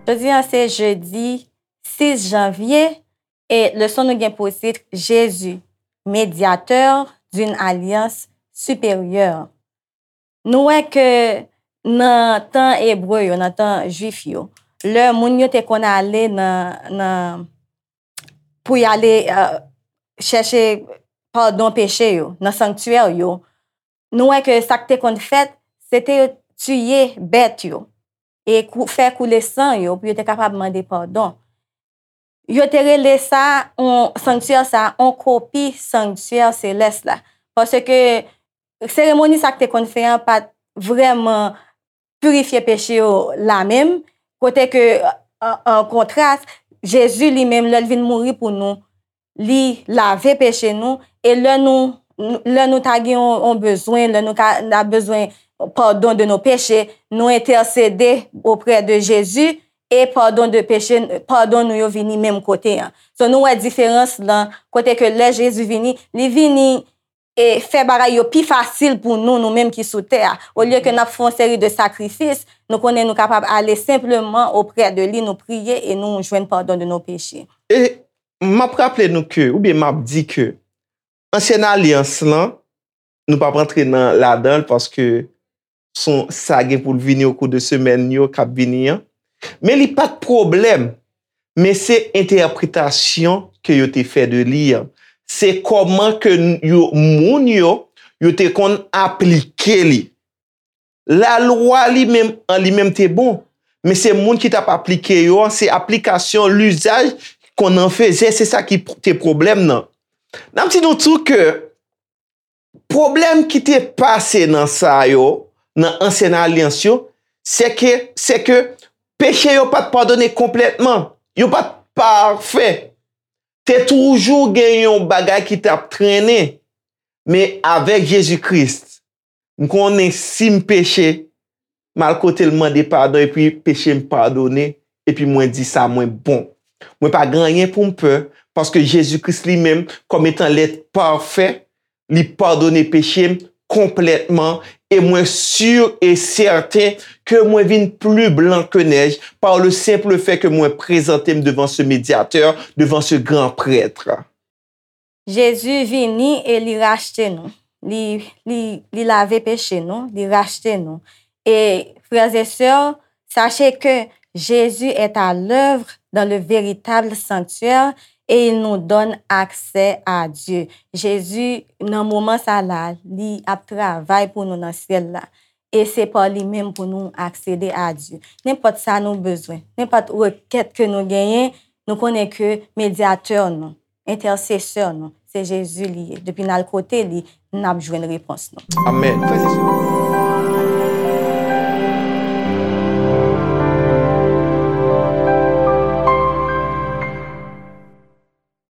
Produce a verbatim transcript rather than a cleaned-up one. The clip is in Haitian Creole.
Jodi a se jedi sis janvye e leson nou gen pou tit Jésus, médiateur d'une alliance supérieure. Nou wè ke nan tan ebre yo, nan tan jwif yo, lè moun yo te konn ale nan, nan, pou y ale, euh, chèche padon peche yo, nan sanktyè yo, nou wè ke sa k te konn fèt, se te yo tiye bèt yo, e kou-, fè koule san yo pou yo te kapab mande padon. Yo te rele sa, on, sanktyè sa, on kopi sanktyè selès la. Paske seremoni sa k te konn fè an pa t vrèman pirifye peche yo la menm, kote ke, an, an kontras, Jezi li menm, lè l vin mouri pou nou, li lave peche nou, e lè nou, lè nou ta gen yon, yon bezwen, lè nou ka, n a bezwen pardon de nos péchés, nou entèsede oprè de Jezi, e pardon de péché, pardon nou yo vini menm kote an. So, nou wè diferans lan, kote ke lè Jezi vini, li vini e fè bagay yo pi fasil pou nou, nou menm ki sou tè a. Olye ke n ap fè yon seri de sakrifis, nou konnen nou kapab ale senpleman oprè de li, nou priye e nou jwenn pardon de nos péchés. E m ap raple nou ke, oubyen m ap di ke ansyen alyans lan, nou p ap antre nan, ladan l paske son, sa gen pou l vini okou de semèn yo k ap vini an. Men li pa t pwoblèm, men se entèpretasyon ke yo te fè de li an. Se kòman ke n-, yo, moun yo, yo te konn aplike li. Lalwa li menm, an li menm te bon, men se moun ki t ap aplike yo an, se aplikasyon, lizaj konn an fezè, se sa ki p-, te pwoblèm nan. N ap di nou tou ke pwoblèm ki te pase nan sa yo, nan ansyen alyans yo, se ke, se ke peche yo pa t padone konplètman. Yo pa t pafè. Te toujou gen yon bagay ki t ap trennen. Men avèk Jezi Kris, m konnen si m peche, m al kote l mande padon, epi peche m padone, epi mwen di sa mwen bon. Mwen pa gen anyen pou m pè, paske Jezi Kris li menm, kòm etan lèt pafè, li padone peche m konplètman, e mwen si e sèten ke mwen vin pli blan ke nèj, par le simple fait ke mwen prezante m devan ce médiateur, devan ce grand prêtre. Jezi vini e li rachte nou. Li, li, li lave peche nou, li rachte nou. Et frères et sœurs, sachez que Jésus est à l'œuvre dans le véritable sanctuaire et il nous donne accès à Dieu. Jezi, nan moman sa la, li ap travay pou nou nan syèl la. E se pa li menm pou nou aksede a Dye. Nenpòt sa nou bezwen, nenpòt rekèt ke nou genyen, nou konnen ke medyatè nou, entèsesè nou, se Jezi li ye. Depi n al kote li, n ap jwenn repons nou. Amèn. Frè e sè,